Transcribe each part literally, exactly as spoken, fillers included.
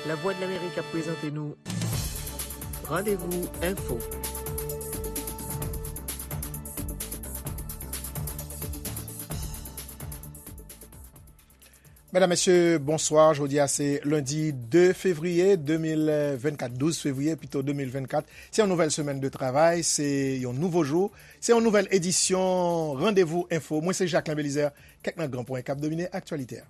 Lavwadlamerik ap prezante nou Randevou Enfo. Medam, mesye, bonswa. Jodi a se lendi de fevriye de mil vennkat, douz fevriye pito de mil vennkat. Se yon nouvèl semèn de travay, se yon nouvo jou, se yon nouvèl edisyon Randevou Enfo. Mwen se Jacquelin Belizaire, kèk nan gran pwen k ap domine aktyalite a.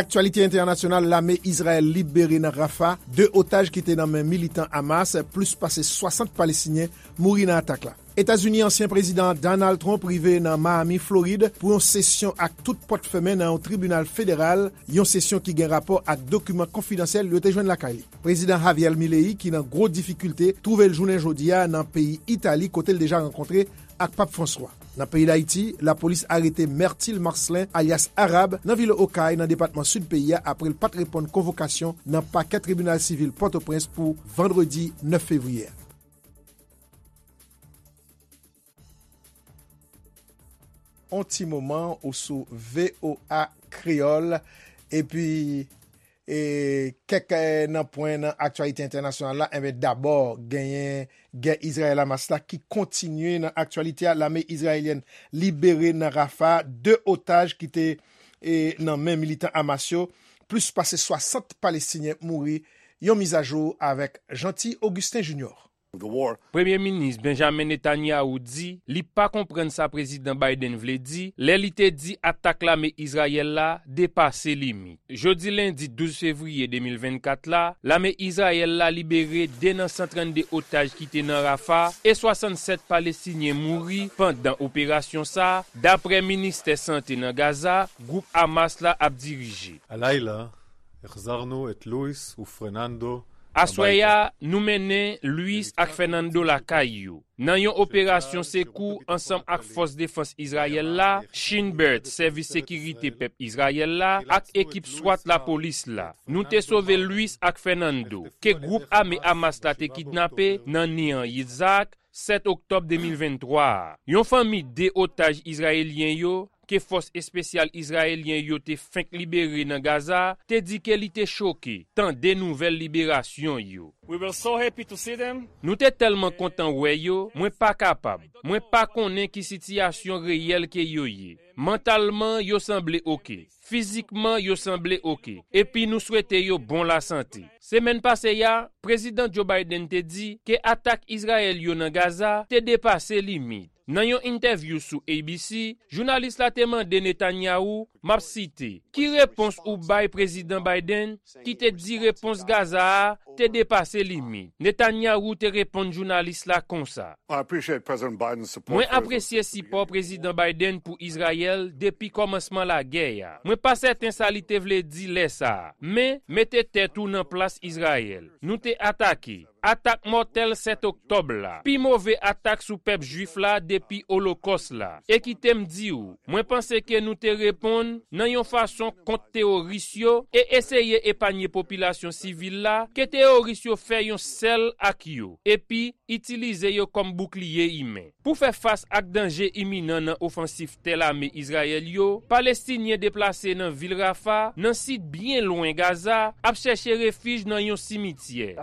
Aktyalite entènasyonal, lame Izrayèl libere nan Rafah de otaj ki te nan men militan Hamas, plis pase swasant Palestinyen mouri nan atak la. Etazini, ansyen prezidan Donald Trump rive nan Miami, Florid, pou yon sesyon ak tout pòt fèmen nan yon tribinal federal, yon sesyon ki gen rapò ak dokiman konfidansyèl yo te jwenn lakay li. Prezidan Javier Milei, ki nan gwo difikilte, twouve l jounen jodi a nan peyi Itali, kote l deja rankontre ak Pap Franswa. Nan peyi Dayiti, lapolis arete Myrtil Marcelin, alyas Arab, nan vil Okay, nan depatman Sid peyi a, apre l pa t reponn konvokasyon nan pakè tribinal sivil Pòtoprens pou vandredi nèf fevriye a. On ti moman ou sou V O A Kreyòl, epi e kèk, e, nan pwen nan aktyalite entènasyonal la, enben, dabò, genyen gè Izrayèl-Hamas la ki kontinye nan aktyalite a. Lame izrayelyèn libere nan Rafah de otaj ki te, e, nan men militan Hamas yo. Plis pase swasant Palestinyen mouri. Yon mizajou avèk Jeanty Augustin Junior. Premye Minis Benjamin Netanyahu di li pa konprann sa Prezidan Biden vle di lè li te di atak lame Izrayèl la depase limit. Jodi lendi douz fevriye de mil vennkat la, lame Izrayèl la libere de nan san trannde otaj ki te nan Rafah e swasannsèt Palestinyen mouri pandan operasyon sa a, daprè Ministè Sante nan Gaza, gwoup Hamas la ap dirije. הלילה החזרנו את לואיס ופרננדו Aswè a, nou mennen Luis ak Fernando lakay yo. Nan yon operasyon sekou ansanm ak Fòs Defans Izrayèl la, Shin Bet, Sèvis Sekirite Pèp Izrayèl la, ak ekip swat lapolis la, nou te sove Luis ak Fernando, ke gwoup ame Hamas la te kidnape nan Nir Yitzhak, sèt oktòb de mil venntwa a. Yon fanmi de otaj izrayelyen yo, ke fòs espesyal izrayelyen yo te fenk libere nan Gaza, te di ke li te choke tande nouvèl liberasyon yo. We were so happy to see them. Nou te tèlman kontan wè yo, mwen pa kapab. Mwen pa konnen ki sitiyasyon reyèl ke yo ye. Mantalman, yo sanble oke. Fizikman, yo sanble oke. Epi nou swete yo bon lasante. Semèn pase a, Prezidan Joe Biden te di ke atak Izrayèl yo nan Gaza te depase limit. Nan yon entèvyou sou A B C, jounalis la te mande Netanyahu, m ap site, "Ki repons ou bay Prezidan Biden ki te di repons Gaza a te depase limit?" Netanyahu te reponn jounalis la konsa, I appreciate President Biden's support Mwen for Israel apresye since the sipò beginning of the war. Prezidan Biden pou Izrayèl depi kòmansman lagè a. Mwen pa sèten sa li te vle di lè sa a, men mete tèt ou nan plas Izrayèl. Nou te atake. Atak mòtèl sèt oktòb la, pi move atak sou pèp jwif la depi Olokòs la. E kite m di w, mwen panse ke nou te reponn nan yon fason kont teworis yo e eseye epanye popilasyon sivil la ke teworis yo fè yon sèl ak yo, epi itilize yo kòm boukliye imen. Pou fè fas ak danje iminan nan ofansif tè lame Izrayèl yo, Palestinyen deplase nan vil Rafa, nan sid byen lwen Gaza, ap chèche refij nan yon simityè.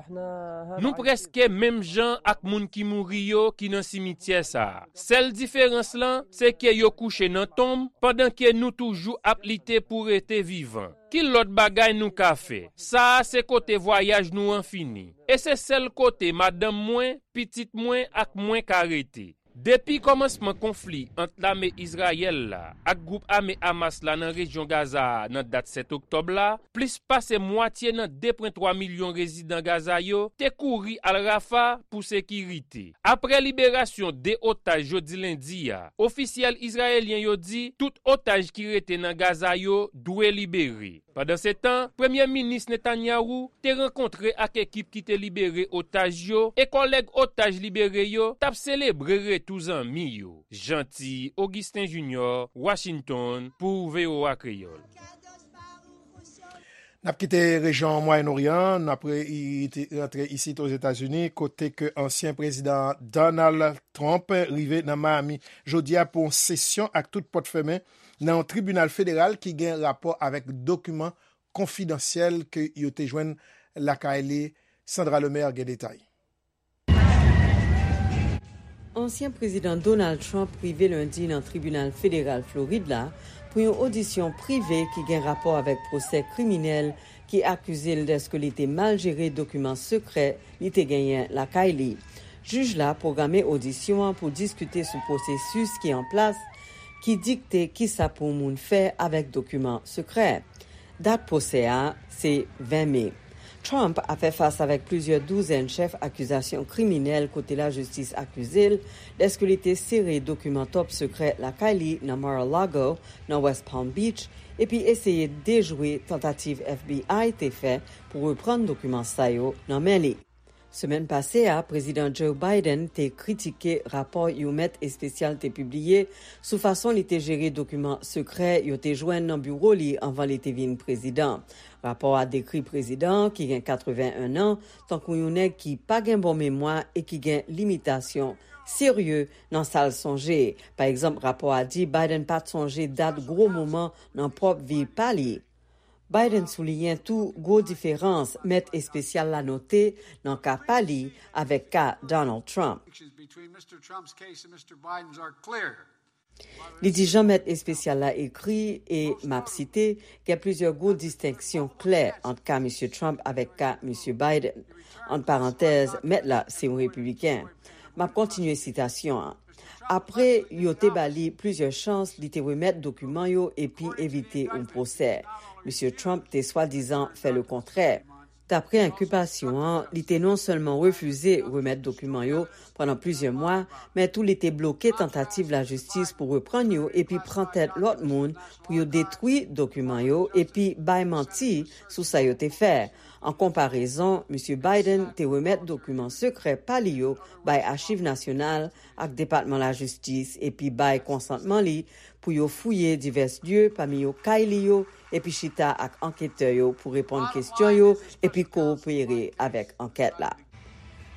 Nou prèske menm jan ak moun ki mouri yo ki nan simityè sa a. Sèl diferans lan, se ke yo kouche nan tonm, pandan ke nou toujou ap lite pou rete vivan. Ki lòt bagay nou ka fè? Sa a se kote vwayaj nou an fini. E se sèl kote madanm mwen, pitit mwen ak mwen ka rete. Depi kòmansman konfli ant lame Izrayèl la ak gwoup ame Hamas la nan rejyon Gaza a nan dat sèt oktòb la, plis pase mwatye nan de pwen twa milyon rezidan Gaza yo te kouri al Rafa pou sekirite. Apre liberasyon de otaj jodi lendi a, ofisyèl izrayelyen yo di tout otaj ki rete nan Gaza yo dwe libere. Pandansetan, Premye Minis Netanyahu te rankontre ak ekip ki te libere otaj yo e kòlèg otaj libere yo t ap selebre retou zanmi yo. Jeanty Augustin Junior, Washington, pou V O A Kreyòl. N ap kite rejyon Mwayen Oryan, n ap re-, i-, i-, rantre isit Ozetazini, kote ke ansyen prezidan Donald Trump rive nan Miami jodi a pou yon sesyon ak tout pòt fèmen nan yon tribinal federal ki gen rapò avèk dokiman konfidansyèl ke yo te jwenn lakay li. Sandra Lemaire gen detay. Ansyen prezidan Donald Trump rive lendi nan tribinal federal Florid la pou yon odisyon prive ki gen rapò avèk pwosè kriminèl ki akize l dèske li te mal jere dokiman sekrè li te genyen lakay li. Jij la pwograme odisyon an pou diskite sou pwosesis ki an plas ki dikte kisa pou yon moun fè avèk dokiman sekrè. Dat pwosè a se ven me. Trump ap fè fas avèk plizyè douzèn chèf akizasyon kriminèl kote lajistis akize l dèske li te sere dokiman top sekrè lakay li nan Mar-a-Lago, nan West Palm Beach, epi eseye dejwe tantativ F B I te fè pou reprann dokiman sa yo nan men li. Semèn pase a, Prezidan Joe Biden te kritike rapò yon mèt espesyal te pibliye sou fason li te jere dokiman sekrè yo te jwenn nan biwo li anvan li te vin prezidan. Rapò a dekri prezidan an, ki gen katreven en an, tankou yon nèg ki pa gen bon memwa e ki gen limitasyon serye nan sa l sonje. Pa egzanp, rapò a di Biden pa t sonje dat gwo moman nan pwòp vi pa li. Biden souliyen tou gwo diferans mèt espesyal la note nan ka pa li avèk ka Donald Trump. Li di jan mèt espesyal la ekri, e m ap site, gen plizyè gwo distenksyon klè ant ka Misye Trump avèk ka Misye Biden. Ant parantèz, mèt la se yon repibliken. M ap kontinye sitasyon an. Apre yo te ba li plizyè chans, li te remèt dokiman yo epi evite yon pwosè. Misye Trump te swadizan fè lekontrè. Dapre enkilpasyon an, li te non sèlman refize remèt dokiman yo pandan plizyè mwa, men tou li te bloke tantativ lajistis pou reprann yo epi pran tèt lòt moun pou yo detwi dokiman yo epi bay manti sou sa yo te fè. An konparezon, Misye Biden te remèt dokiman sekrè pa li yo bay Achiv Nasyonal ak Depatman Lajistis epi bay konsantman li pou yo fouye divès lye, pami yo kay li yo, epi chita ak anketè yo pou reponn kesyon yo epi kowopere avèk ankèt la.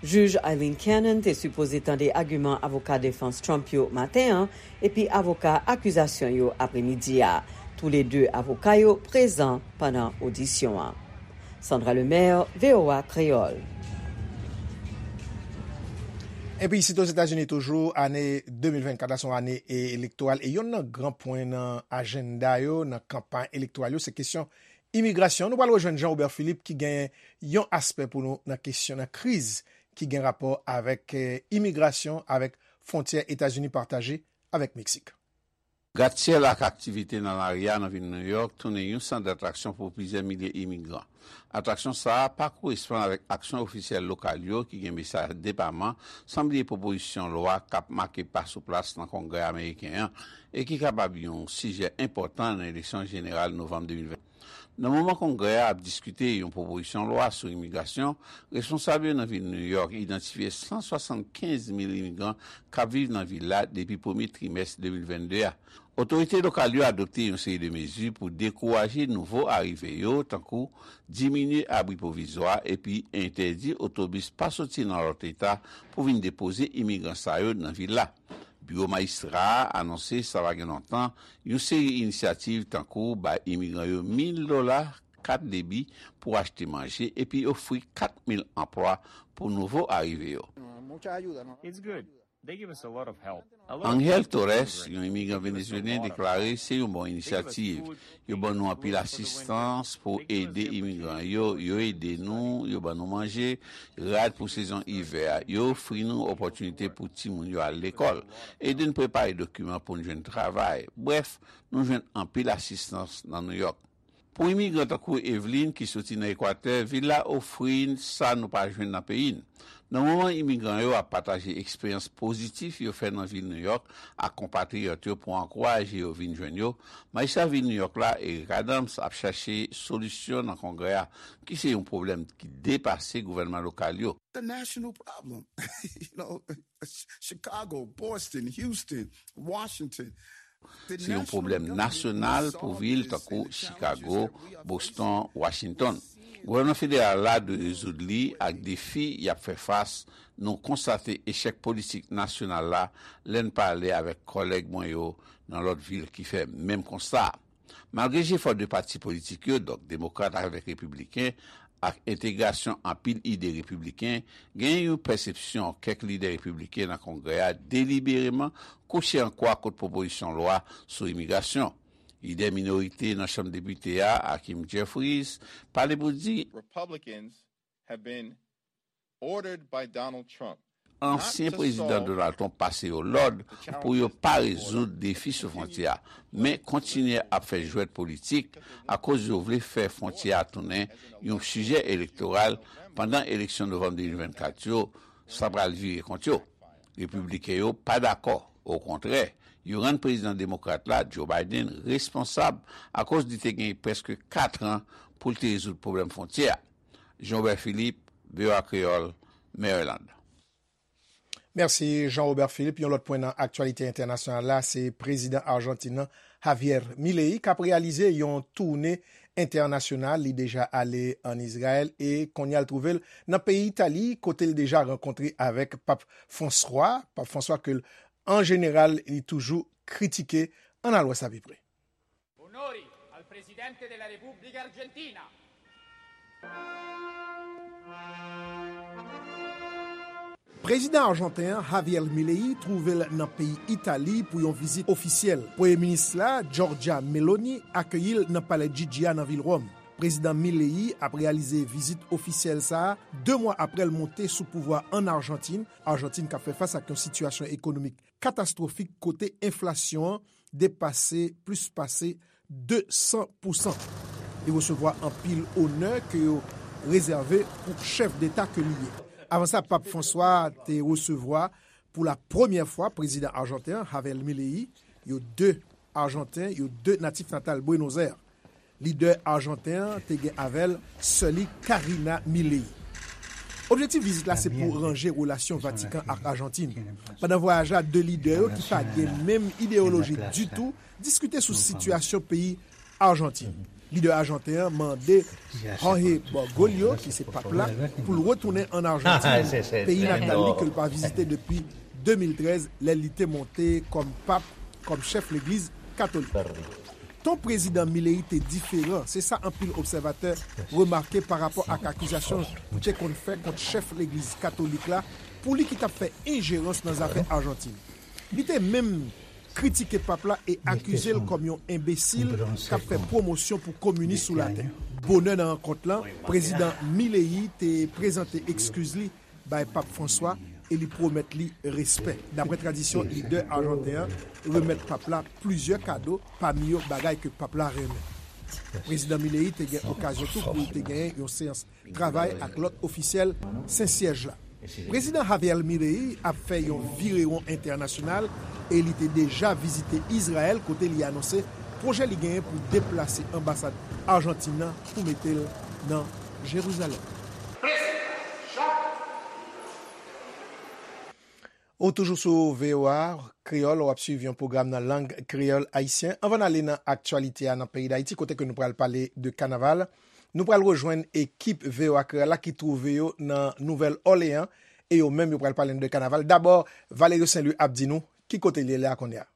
Jij Aileen Cannon te sipoze tande agiman avoka defans Trump yo maten an epi avoka akizasyon yo apremidi a. Toulede avoka yo prezan pandan odisyon an. Sandra Lemaire, V O A Kreyòl. Epi isit Ozetazini toujou, ane de mil vennkat la se yon ane e-, elektoral, e yonn nan gran pwen nan ajanda yo, nan kanpay elektoral yo, se kesyon imigrasyon. Nou pral rejwenn Jean Robert Philippe ki gen yon aspè pou nou nan kesyon, nan kriz ki gen rapò avèk, eh, imigrasyon, avèk fwontyè Etazini pataje avèk Meksik. Gratsyèl ak aktivite nan lari a nan vil Nouyòk tounen yon sant datraksyon pou plizyè milye imigran. Atraksyon sa a pa koresponn avèk aksyon ofisyèl lokal yo ki gen mesaj depaman, san bliye pwopozisyon lwa k ap make pa sou plas nan Kongrè ameriken an e ki kapab yon sijè enpòtan nan eleksyon jeneral novanm de mil ven. Nan moman Kongrè a ap diskite yon pwopozisyon lwa sou imigrasyon, responsab yo nan vil Nouyòk idantifye san swasannkenz mil imigran k ap viv nan vil la depi premye trimès de mil vennde a. Otorite lokal yo adopte yon seri de mezi pou dekouraje nouvo arive yo, tankou diminye abri pwovizwa epi entèdi otobis pa soti nan lòt eta pou vin depoze imigran sa yo nan vil la. Biwo majistra a anonse sa pa gen lontan yon seri inisyativ tankou bay imigran yo mil dola, kat debi pou achte manje epi ofri kat mil anplwa pou nouvo arive yo. Angel Torres, yon imigran venezuelyen, deklare se yon bon inisyativ. Yo ban nou anpil asistans pou ede imigran yo. Yo ede nou, yo ban nou manje, rad pou sezon ivè a. Yo ofri nou opòtinite pou timoun yo al lekòl, ede n prepare dokiman pou n jwenn travay. Brèf, nou jwenn anpil asistans nan Nouyòk. Pou imigran tankou Evelyn ki soti nan Ekwatè, vil la ofri n sa nou pa jwenn nan peyi n. Nan moman imigran yo ap pataje eksperyans pozitif yo fè nan vil Nouyòk ak konpatriyòt yo pou ankouraje yo vin jwenn yo, majistra vil Nouyòk la, Eric Adams, ap chache solisyon nan Kongrè a, ki se yon pwoblèm ki depase gouvènman lokal yo. The national problem. You know, Chicago, Boston, Houston, Washington, Se yon pwoblèm nasyonal pou vil tankou Chicago, Boston, Washington. Gouvènman federal la dwe rezoud li ak defi y ap fè fas. Nou konstate echèk politik nasyonal la lè n pale avèk kòlèg mwen yo nan lòt vil ki fè menm konsta a. Malgre jefò de pati politik yo, donk demokrat avèk repibliken, ak entegrasyon anpil ide repibliken, genyen yon pèsepsyon kèk lidè repibliken nan Kongrè a delibereman kouche an kwa kont pwopozisyon lwa sou imigrasyon. Lidè minorite nan Chanm Depite a, Hakeem Jeffries, pale pou di Republicans have been ordered by Donald Trump ansyen prezidan Donald Trump pase yo lòd pou yo pa rezoud defi sou fwontyè a, men kontinye ap fè jwèt politik akoz yo vle fè fwontyè a tounen yon sijè elektoral pandan eleksyon novanm de mil vennkat yo, sa pral vire kont yo. Repibliken yo pa dakò, okontrè, yo rann prezidan demokrat la, Joe Biden, responsab akoz li te gen prèske kat an pou l te rezoud pwoblèm fwontyè a. Jean Robert Philippe, V O A Kreyòl, Maryland. Mèsi Jean Robert Philippe. Yon lòt pwen nan aktyalite entènasyonal la, se prezidan Ajantin nan, Javier Milei, k ap reyalize yon toune entènasyonal. Li deja ale ann Izrayèl e kounye a l twouve l nan peyi Itali, kote l deja rankontre avèk Pap Franswa. Pap Franswa ke l, an jeneral, li toujou kritike. Ann al wè sa pi pre. Onori al Presidente della Repubblica Argentina. Prezidan ajanten an, Javier Milei, twouve l nan peyi Itali pou yon vizit ofisyèl. Premye minis la, Giorgia Meloni, akeyi l nan Palè Chigi a nan vil Wòm. Prezidan Milei ap reyalize vizit ofisyèl sa a de mwa apre l monte sou pouvwa ann Ajantin, Ajantin k ap fè fas ak yon sitiyasyon ekonomik katastwofik kote enflasyon an depase plis pase de san pousan. Li resevwa anpil onè ke yo rezève pou chèf deta ke li ye. Avan sa, Pap Franswa te resevwa pou la premyè fwa prezidan ajanten an, Javier Milei, yo de Ajanten, yo de natif natal Buenos Aires. Lidè ajanten an te gen avè l sè li Karina Milei. Objektif vizit la se pou ranje relasyon Vatikan ak Ajantin. Pandan vwayaj la, de lidè yo ki pa gen menm ideyoloji ditou diskite sou sitiyasyon peyi Ajantin. Lidè ajanten an mande Jorge Bergoglio, ki se pap la, pou l retounen ann Ajantin, peyi natal li ke l pa vizite depi de mil trèz, lè li te monte kòm pap, kòm chèf legliz katolik. Ton prezidan Milei te diferan, se sa anpil obsèvatè remake parapò ak akizasyon li te konn fè kont chèf legliz katolik la pou li ki t ap fè enjerans nan zafè Ajantin. Li te menm kritike pap la e akize l kòm yon enbesil k ap fè pwomosyon pou kominis sou latè. Bonè nan rankont lan, prezidan Milei te prezante ekskiz li bay Pap Franswa e li pwomèt li respè. Daprè tradisyon, lidè ajanten an remèt pap la plizyè kado, pami yo bagay ke pap la renmen. Prezidan Milei te gen okazyon tou pou l te genyen yon seyans travay ak lòt ofisyèl Sen Syèj la. Prezidan Javier Milei ap fè yon virewon entènasyonal e li te deja vizite Izrayèl kote li anonse pwojè li genyen pou deplase anbasad Ajantin nan pou mete l nan Jerizalèm. Ou toujou sou V O A Kreyòl, w ap swiv yon pwogram nan lang kreyòl ayisyen. Anvan n ale nan aktyalite a nan peyi Dayiti, kote ke nou pral pale de kanaval, nou pral rejwenn ekip V O A Kreyòl la ki twouve yo nan Nouvèl Òleyan, e yo menm yo pral pale nou de kanaval. Dabò, Valerio Saint Louis ap di nou ki kote l ye la kounye a.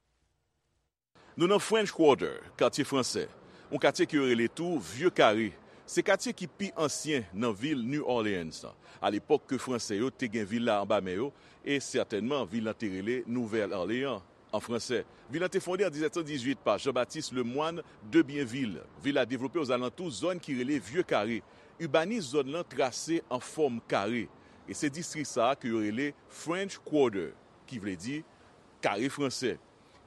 Nou nan French Quarter, katye fransè, yon katye ke yo rele tou Vye Kare. Se katye ki pi ansyen nan vil New Orleans lan. Alepòk ke Fransè yo te gen vil la anba men yo, e sètènman vil lan te rele Nouvèl Òleyan an fransè. Vil lan te fonde an diznèf san dizuit pa Jean-Baptiste Lemoine de Bienville. Vil la devlope ozalantou zòn ki rele Vye Kare. Ibanis zòn lan trase an fòm kare, e se distri sa a ke yo rele French Quarter, ki vle di kare fransè.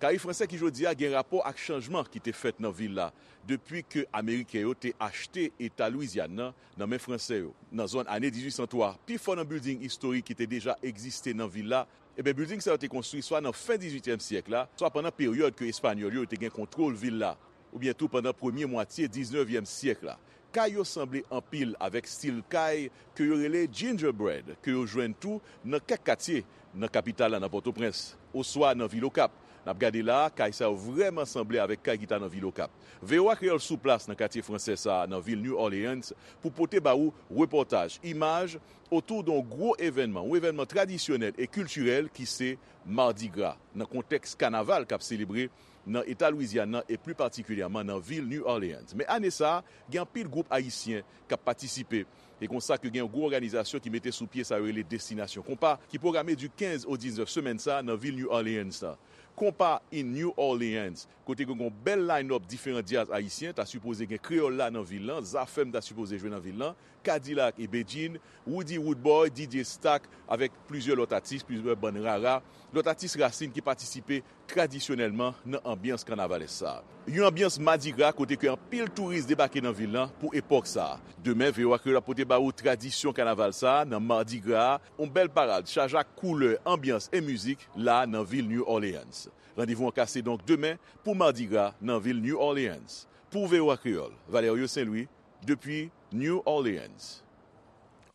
Kare fransè ki jodi a gen rapò ak chanjman ki te fèt nan vil la depi ke Ameriken yo te achte eta Lwizyàn nan nan men Fransè yo nan zòn ane dizuit san twa. Pi fò nan bilding istorik ki te deja egziste nan vil la, ebyen, bilding sa yo te konstwi swa nan fen dizuityèm syèk la, swa pandan peryòd ke Espanyòl yo te gen kontwòl vil la, oubyen tou pandan premye mwatye diznèvyèm syèk la. Kay yo sanble anpil avèk stil kay ke yo rele gingerbread, ke yo jwenn tou nan kèk katye nan kapital la, nan Pòtoprens, oswa nan vil Okap. N ap gade la a, kay sa yo vrèman sanble avèk kay ki ta nan vil Okap. V O A Kreyòl sou plas nan katye fransè sa a nan vil New Orleans pou pote ba ou repòtaj, imaj, otou de yon gwo evènman, yon evènman tradisyonèl e kiltirèl ki se Mardi Gras, nan kontèks kanaval k ap selebre nan eta Lwizyàn nan e pli patikilyèman nan vil New Orleans. Men ane sa a, gen anpil gwoup ayisyen k ap patisipe. E konsa ke gen yon gwo òganizasyon ki mete sou pye sa yo rele Destinasyon Konpa, ki pwograme di kenz o diznèf semèn sa a nan vil New Orleans la. Konpa in New Orleans, kote gen yon bèl line-up diferan djaz ayisyen, ta sipoze gen Kreyòl La nan vil lan, Zafèm ta sipoze jwe nan vil lan, Kadilak e Bedjine, Roody Roodboy, D J Stack, avèk plizyè lòt atis, plizyè bann rara, lòt atis rasin ki patisipe tradisyonèlman nan anbyans kanavalès sa a. Yon anbyans madigra kote ke anpil touris debake nan vil lan pou epòk sa a. Demen, V O A Kreyòl ap pote ba ou tradisyon kanaval sa a nan madigra a, yon bèl parad chaje ak koulè, anbyans e mizik la nan vil New Orleans. Randevou an kase donk demen pou madigra nan vil New Orleans. Pou V O A Kreyòl, Valerio Saint-Louis, depi New Orleans.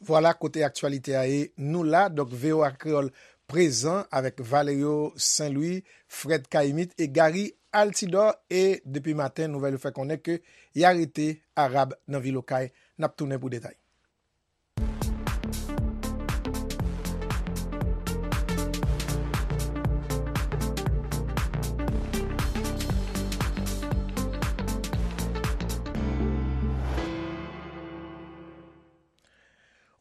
Vwala kote aktyalite a ye. Nou la, donk V O A Kreyòl prezan avèk Valerio Saint-Louis, Fred Caïmite e Gary Altidor. E depi maten, nouvèl yo fè konnen ke y arete Arab nan vil Okay. N ap tounen pou detay.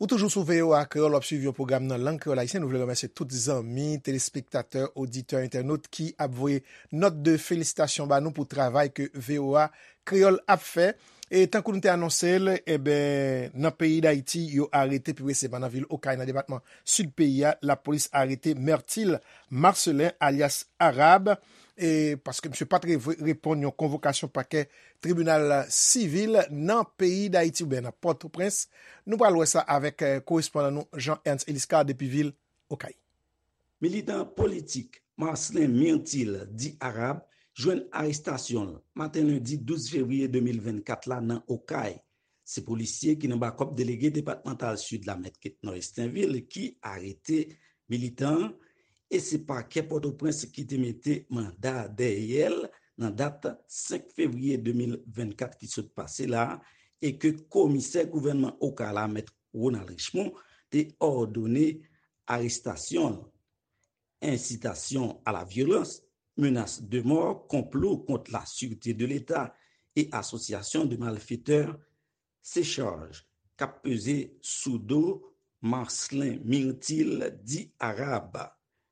Ou toujou sou V O A Kreyòl, w ap swiv yon pwogram nan lang kreyòl ayisyen. Nou vle remèsye tout zanmi, telespektatè, oditè, entènot ki ap voye nòt de felisitasyon ba nou pou travay ke V O A Kreyòl ap fè. E tankou nou te anonse l, eben, nan peyi Dayiti, yo arete, pi presizeman nan vil Okay, nan depatman Sid peyi a, lapolis arete Myrtil Marcelin, alyas Arab, e paske misye pa t re-, reponn yon konvokasyon pakè tribinal sivil nan peyi Dayiti oubyen nan Pòtoprens. Nou pral wè sa avèk, eh, korespondan nou Jean Ernst Eliscar depi vil Okay. Militan politik Marcelin Myrtil, di Arab, jwenn arestasyon l maten lendi douz fevriye de mil vennkat la nan Okay. Se polisye ki nan bakòp delege depatmantal Sid la, mèt Ketnor Estinvil, ki arete militan an, e se pakè Pòtoprens ki te mete manda dèyè l nan dat senk fevriye de mil vennkat ki sot pase la, e ke komisè gouvènman Okay la, mèt Ronald Richemond, te òdone arestasyon l. Incitation à la violence, menace de mort, complot contre la sûreté de l'État et association de malfaiteurs, se chaj k ap peze sou do Marcelin Myrtil, di Arab.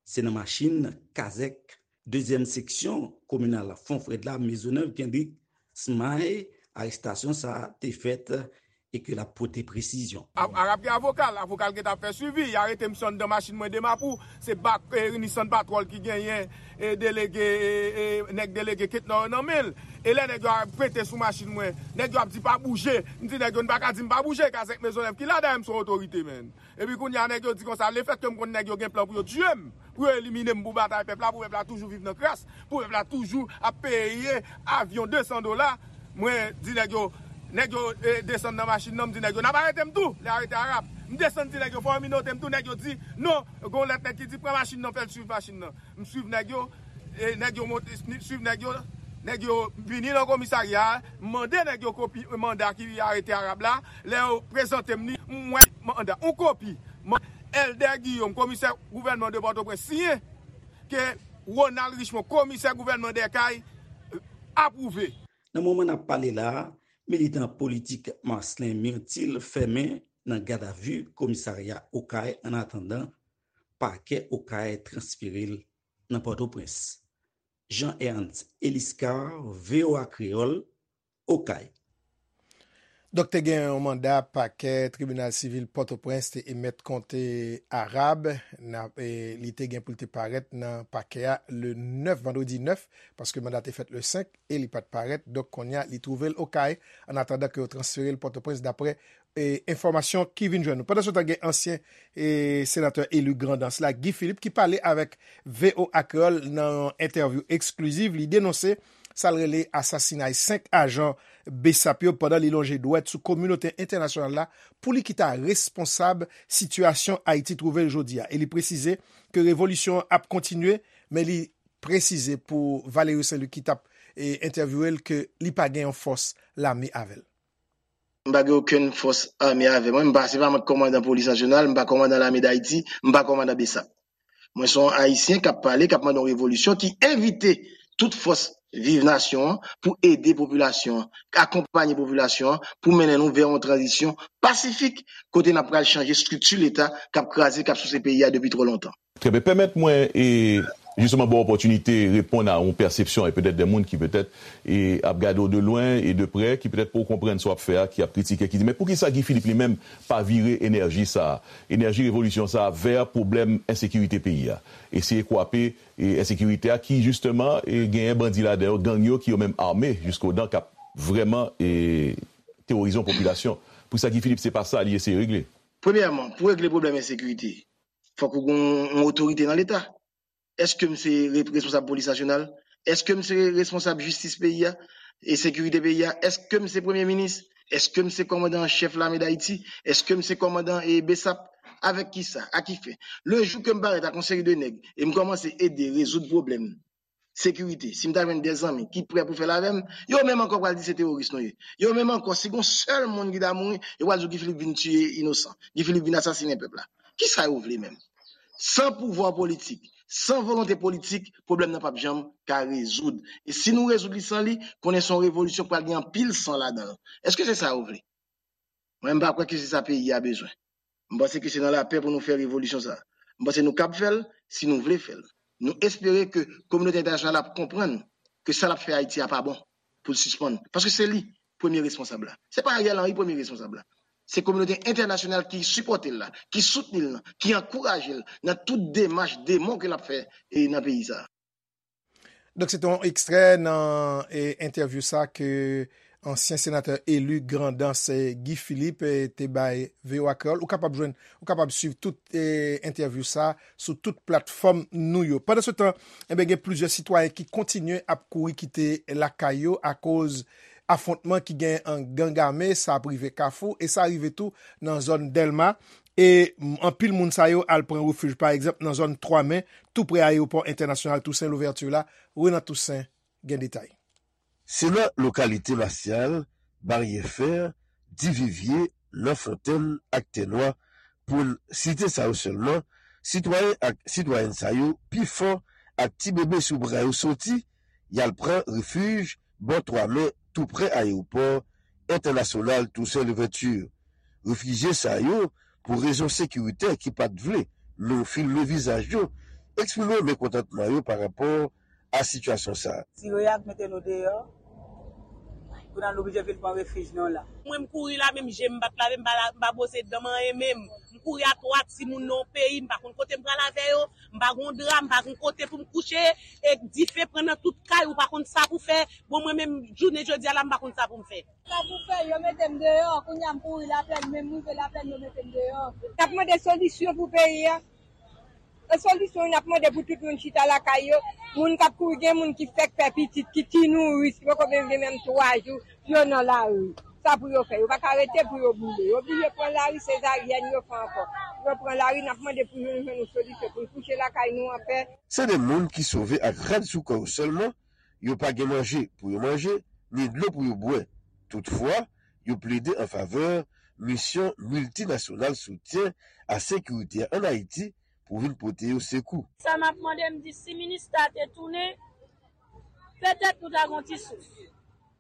Se nan machin kazèk dezyèm seksyon kominal Fon Frèd la, Mezonèv, Kendrick Smay, arestasyon sa a te fèt e ke l ap pote presizyon. A-, Arab gen avoka l, avoka l gentan ap fè swivi. Y arete misye anndan machin mwen de Mapou. Se bak, e, Nissan Patrol ki genyen, e, delege, e, e, nèg delege Ketnor yo nan men l. E lè nèg yo ap pete sou machin mwen, nèg yo ap di pa bouje. M di nèg yo, n pa ka di m pa bouje, kazèk Mezonèv ki la, dayè m se yon otorite, menn. Epi kounye a, nèg yo di konsa, lefètke m konn nèg yo gen plan pou yo tiye m, pou yo elimine m, pou batay pèp la, pou pèp la toujou viv nan kras, pou pèp la toujou ap peye avyon de san dola, mwen di nèg yo, nèg yo, eh, desann nan machin nan, m di nèg yo, n ap arete m tou, lè arete Arab. M desann di nèg yo, fò yo minote m tou, nèg yo di, non, gon lòt nèg ki di, pran machin nan, fè l swiv machin nan. M swiv nèg yo, e nèg yo monte, m swiv nèg yo, nèg yo vini nan komisarya a, m mande nèg yo kopi manda ki arete Arab la, lè yo prezante m li, m wè manda, yon kopi, man-, Elder Guillaume, komisè gouvènman de Pòtoprens, siyen, ke Ronald Richemond, komisè gouvènman de Okay, apwouve. Nan moman n ap pale la a, militan politik Marcelin Myrtil fèmen nan gadavi komisarya Okay, annatandan pakè Okay transfere l nan Pòtoprens. Jean Ernst Eliscar, V O A Kreyòl, Okay. Donk, te gen yon manda pakè tribinal sivil Pòtoprens te emèt kont Arab. N ap, e, li te gen pou l te parèt nan pakè a le nèf, vandredi nèf, paske manda te fèt le senk e li pa t parèt. Donk, kounye a, li twouve l Okay, annatandan ke yo transfere l Pòtoprens, daprè e, enfòmasyon ki vin jwenn nou. Pandansetan, gen ansyen, e, senatè eli Grandans la, Guy Philippe, ki pale avèk V O A Kreyòl nan yon entèvyou eksklizif. Li denonse sa l rele asasinay senk ajan BSAP yo pandan li lonje dwèt sou kominote entènasyonal la pou li ki ta responsab sitiyasyon Ayiti twouve l jodi a. E li presize ke revolisyon an ap kontinye, men li presize pou Valerio Saint-Louis ki t ap e, entèvyouwe l ke li pa gen yon fòs lame avè l. M pa gen okenn fòs ame avè mwen. M pa, se pa mwen k kòmandan polis nasyonal, m pa kòmandan lame Dayiti, m pa kòmandan BSAP. Mwen se yon Ayisyen k ap pale, k ap mande yon revolisyon, ki envite tout fòs Viv Nasyon an pou ede popilasyon an, akonpanye popilasyon an pou mennen nou vè yon tranzisyon pasifik kote n ap pral chanje estrikti Leta k ap kraze, k ap souse peyi a depi twò lontan. Trè byen. Pèmèt mwen e jisteman ba w opòtinite reponn a yon pèsepsyon e petèt de moun ki petèt e ap gade w de lwen e de prè, ki petèt poko konprann sa w ap fè a, ki ap kritike, ki di men poukisa Guy Philippe li menm pa vire enèji sa a, enèji revolisyon sa a vè pwoblèm ensekirite peyi a, eseye kwape e ensekirite a ki jisteman e genyen bandi ladan yo, gang yo ki yo menm ame jiskodan k ap vrèman e teworize yon popilasyon. Poukisa Guy Philippe se pa sa li eseye regle? Premyèman, pou regle pwoblèm ensekirite, fòk ou gen yon otorite nan Leta. Èske m se responsab polis nasyonal? Èske m se responsab jistis peyi a e sekirite peyi a? Èske m se premye minis? Èske m se kòmandan an chèf lame Dayiti? Èske m se kòmandan e BSAP? Avèk kisa? A ki fen? Le jou ke m parèt ak yon seri de nèg e m kòmanse ede rezoud pwoblèm sekirite, si m ta jwenn de zanmi ki prè pou fè l avè m, yo menm ankò pral di se teworis nou ye. Yo menm ankò, si gon sèl moun ki ta mouri, yo pral di w Guy Philippe vin tiye inosan, Guy Philippe vin asasinen pèp la. Kisa yo vle menm? San pouvwa politik, san volonte politik, pwoblèm nan p ap janm ka rezoud. E si nou rezoud li san li, konnen se yon revolisyon k pral gen anpil san ladan l. Èske se sa yo vle? Mwen, m pa kwè ke se sa peyi a bezwen. M panse ke se nan lapè pou nou fè revolisyon sa a. M panse nou kab fè l si nou vle fè l. Nou espere ke kominote entènasyonal ap konprann ke sa l ap fè Ayiti a pa bon, pou l sispann. Paske se li premye responsab la. Se pa Ariel Henry premye responsab la. Se kominote entènasyonal ki sipòte l la, ki soutni l lan, ki ankouraje l nan tout demach demon ke l ap fè e nan peyi sa a. Donk, se te yon ekstrè nan e, entèvyou sa ke ansyen senatè eli Grandans e, Guy Philippe e, te bay V O A Kreyòl. Ou kapab jwenn, ou kapab swiv tout e, entèvyou sa sou tout platfòm nou yo. Pandansetan, enben, gen plizyè sitwayen ki kontinye ap kouri kite lakay yo akoz afwontman ki gen an gang ame, sa ap rive Kafou e sa rive tou nan zòn Dèlma. E anpil moun sa yo al pran refij, pa egzanp, nan zòn Twa Men, tou pre ayewopò entènasyonal Tousen Louvèti la. Renan Toussaint gen detay. Se nan lokalite Masyal, Baryè Fè, Divivye, Lanfontèn ak Tènwa, pou n site sa yo sèlman, sitwayen ak sitwayèn sa yo pi fò ak ti bebe sou bra yo soti, y al pran refij bò Twa Men, tou pre ayewopò entènasyonal Tousen Louvèti. Refijye sa yo, pou rezon sekiritè ki pa t vle nou filme vizaj yo, eksprime mekontantman yo pa rapò a sitiyasyon sa a. Tire ak mete nou deyò, kounye a nou oblije vin pran refij nou la. Mwen m kouri la, menm je m pa t lave, m pa la, m pa bwose dan m, anyen menm. M kouri a twa timoun nan yon peyi, m pa konn kote m pral avè yo, m pa gon dra, m pa gon kote pou m kouche, e dife pran nan tout kay, ou pa konn sa pou fè. Bon, mwen menm, jounen jodi a la, m pa konn sa pou m fè. Sa pou fè, yo mete m deyò, kounye a m kouri Laplèn, menm m rive Laplèn, yo mete m deyò. N ap mande solisyon pou peyi a. E solisyon n ap mande pou tout moun chita lakay yo, moun k ap kouri, gen moun ki fèk fè pitit, ki ti nouris, ki poko menm gen menm twa jou, yo nan lari. Sa pou yo fè, yo pa ka rete pou yo boule. Yo oblije pran lari, sezaryèn yo fè ankò. Yo pran lari, n ap mande pou nou jwenn yon solisyon, pou n kouche lakay nou anpè. Se de moun ki sove ak rad sou kò yo sèlman, yo pa gen manje pou yo manje, ni dlo pou yo bwè. Toutfwa, yo plede an favè misyon miltinasyonal soutyen a sekirite a ann Ayiti pou vin pote yo sekou. Sa m ap mande, m di si minista te tounen, petèt nou ta gon ti souf.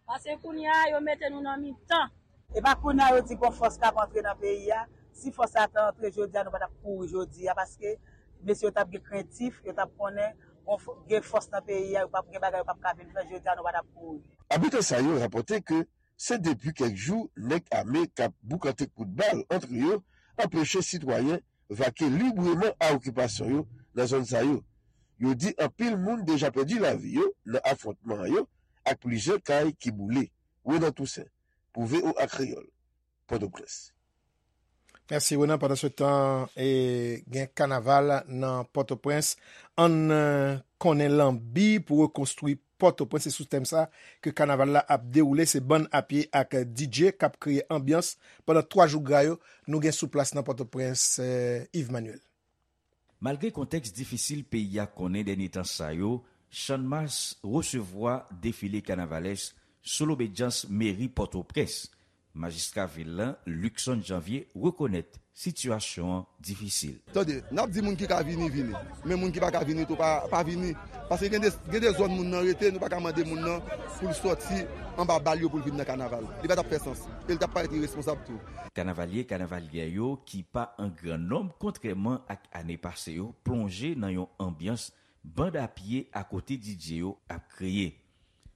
Paske kounye a, yo mete nou nan mitan. E pa kounye a yo di gon fòs k ap antre nan peyi a. Si fòs sa ta antre jodi a, nou pa t ap kouri jodi a, paske mesye yo t ap gen krentif, yo t ap konnen gon fò-, gen fòs nan peyi a, yo p ap gen bagay yo p ap ka vin fè jodi a, nou pa t ap kouri. Abitan sa yo rapòte ke se depi kèk jou nèg ame k ap boukante kout bal antre yo anpeche sitwayen vake libreman a okipasyon yo nan zòn sa yo. Yo di anpil moun deja pèdi lavi yo nan afwontman yo ak plizyè kay ki boule. Renan Toussaint, pou V O A Kreyòl, Pòtoprens. Mèsi, Renan. Pandansetan, e, gen kanaval nan Pòtoprens. Ann, e, konnen lanbi pou rekonstwi Pòtoprens. Se sou tèm sa ke kanaval la ap dewoule. Se bann apye ak D J k ap kreye anbyans pandan twa jou gra yo. Nou gen sou plas nan Pòtoprens, e, Yves Manuel. Malgre kontèks difisil peyi a konnen dènye tan sa yo, Channmas resevwa defile kanavalès sou lobedyans meri Pòtoprens. Majistra vil la, Luckson Janvier, rekonèt sitiyasyon an difisil. Tande, n ap di moun ki ka vini, vini. Men moun ki pa ka vini tou, pa, pa vini. Paske gen de, gen de zòn moun nan rete, nou pa ka mande moun nan pou l sòti anba bal yo pou l vin nan kanaval. Li pa t ap fè sans. E l t ap parèt iresponsab tou. Kanavalye, kanavalyè yo ki pa an gran nonb, kontrèman ak ane pase yo, plonje nan yon anbyans banda pye akote D J yo ap kreye.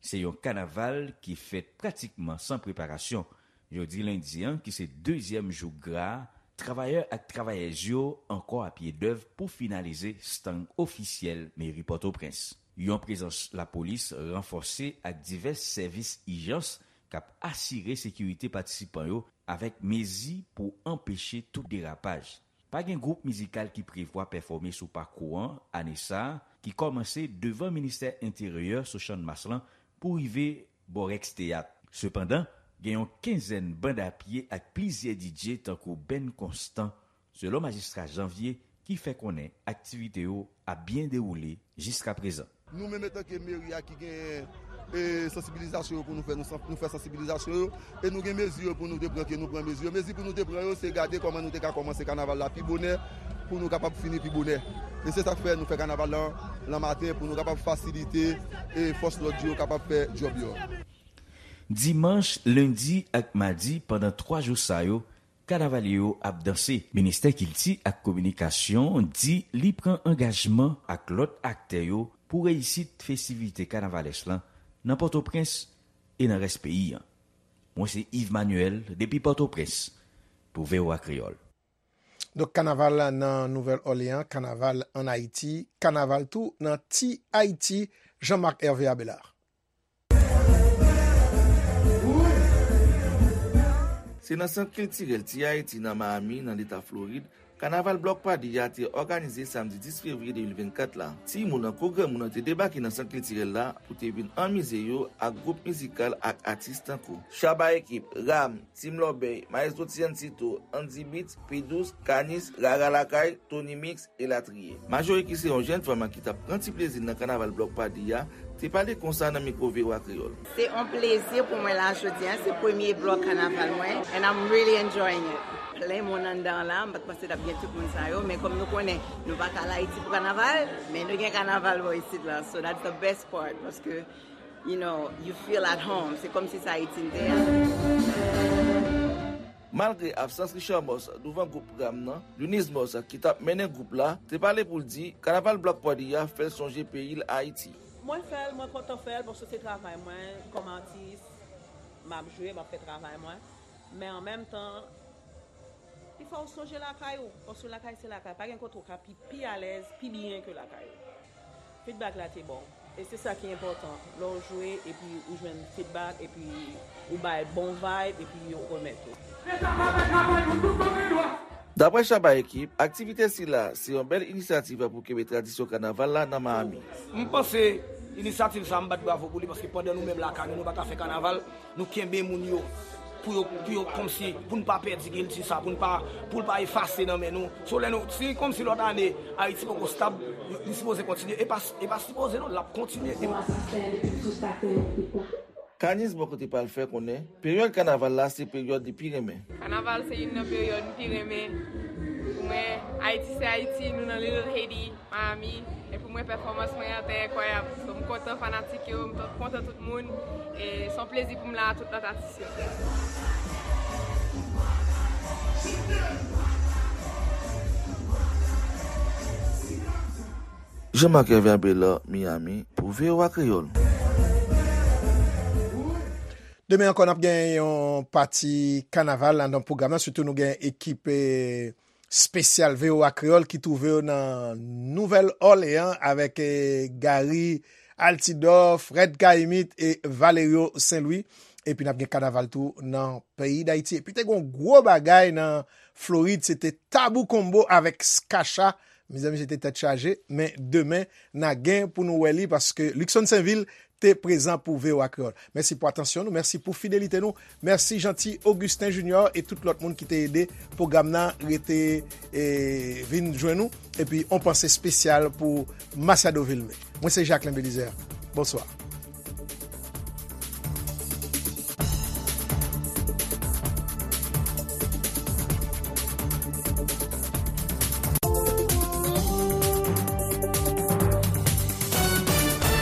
Se yon kanaval ki fèt pratikman san preparasyon. Jodi lendi an, ki se dezyèm jou gra a, travayè ak travayèz yo ankò a pye dèv pou finalize estang ofisyèl meri Pòtoprens. Yon prezans lapolis ranfòse ak divès sèvis ijans k ap asire sekirite patisipan yo avèk mezi pou anpeche tout derapaj. Pa gen gwoup mizikal ki prevwa pèfòme sou pakou an ane sa a, ki kòmanse devan Ministè Enteryè sou Channmas lan pou rive bò Rex Teyat. Sepandan, gen yon kenzèn banda pye ak plizyè D J tankou Band Constant, selon majistra Janvier, ki fè konnen aktivite yo ap byen dewoule jiskaprezan. Nou menm, etanke meri a ki gen, e, sansibilizasyon yo pou nou fè, nou san-, nou fè sansibilizasyon yo, e nou gen mezi yo pou nou te pran, ke nou pran mezi yo. Mezi pou nou te pran yo, se gade kòman nou te ka kòmanse kanaval la pi bonè, pou nou kapab fini pi bonè. E se sa k fè nou fè kanaval lan, lan maten, pou nou kapab fasilite, e fòs lòd yo kapab fè djòb yo. Dimanch, lendi ak madi, pandan twa jou sa yo, kanavalye yo ap danse. Ministè Kilti ak Kominikasyon di li pran angajman ak lòt aktè yo pou reyisit festivite kanavalès lan nan Pòtoprens e nan rès peyi an. Mwen se Yves Manuel depi Pòtoprens pou V O A Kreyòl. Donk, kanaval nan Nouvèl Òleyan, kanaval ann Ayiti, kanaval tou nan Ti Ayiti, Jean-Marc Hervé Abelard. Se nan Sant Kiltirèl Ti Ayiti nan Miami, nan Leta Florid, Kanaval Blòk Padi a te òganize samdi dis fevriye de mil vennkat la. Timoun ak granmoun te debake nan Sant Kiltirèl la pou te vin anmize yo ak gwoup mizikal ak atis tankou Shabba Ekip, Ram, Team Lòbèy, Maestro Tiancito, Andy Beats, P Douze, Kanis, Rara Lakay, Tony Mix, elatriye. Majori ki se yon jèn fanm ki t ap pran ti plezi l nan kanaval Blòk Padi a, te pale konsa nan mikwo V O A Kreyòl. Se yon plezi pou mwen la jodi a, se premye blòk kanaval mwen, and I'm really enjoying it. Plen moun anndan la, m pa t panse t ap gen tout moun sa yo, men kòm nou konnen, nou pa ka al Ayiti pou kanaval, men nou gen kanaval bò isit la, so that's the best part, paske, you know, you feel at home, se kòmsi se Ayiti n te ye. Malgre absans Richard Moss douvan gwoup Ram nan, Lunise Moss ki t ap mennen gwoup la, te pale pou l di kanaval Blòk Padi a fè l sonje peyi l Ayiti. Mwen fè l, mwen kontan fè l, paske se travay mwen kòm atis, m ap jwe, m ap fè travay mwen. Men an menm tan, li fè w sonje lakay ou, paske lakay se lakay, pa gen kote w ka pi, pi alèz, pi byen ke lakay ou. Feedback la te bon. E se sa ki enpòtan. Lè w jwe epi ou jwenn feedback epi ou bay bon vibe epi yo remèt ou. Daprè Shabba Ekip, aktivite sila se yon bèl inisyativ pou kenbe tradisyon kanaval la nan Miami. M panse inisyativ sa, m bat bravo pou li, paske pandan nou menm lakay nou, nou pa ka fè kanaval, nou kenbe moun yo pou yo, pou yo kòmsi, pou n pa pèdi kilti sa, pou n pa, pou l pa efase nan men nou. So, lè nou, si kòmsi lòt ane, Ayiti poko stab, li sipoze kontinye. E pa, e pa sipoze non, l ap kontinye. Kanis bò kote pa l fè konnen, peryòd kanaval la se peryòd li pi renmen. Kanaval se youn nan peryòd m pi renmen. Pou mwen, Ayiti se Ayiti, nou nan Little Haiti, Miami. E pou mwen, pèfòmans mwen an te enkwayab. So, m kontan fanatik yo, m kontan tout moun. E se yon plezi pou m la a tout lòt atis yo. Jean-Marc Hervé Abelard, Miami, pou V O A Kreyòl. Demen ankò, n ap gen yon pati kanaval anndan pwogram nan. Sitou nou gen ekip, eh, espesyal V O A Kreyòl ki twouve yo nan Nouvèl Òleyan avèk, eh, Gary Altidor, Fred Caïmite e Valerio Saint Louis. Epi n ap gen kanaval tou nan peyi Dayiti. Epi te gen yon gwo bagay nan Florid, se te Tabou Combo avèk Skacha. Mezanmi, se te tèt chaje, men demen, n a gen pou nou wè li, paske Luckson Sainvil te prezan pou V O A Kreyòl. Mèsi pou atansyon nou, mèsi pou fidelite nou, mèsi Jeanty Augustin Junior e tout lòt moun ki te ede pwogram nan rete e vin jwenn nou, epi on panse espesyal pou Masiado Vilmé. Mwen se Jacquelin Belizaire. Bonswa.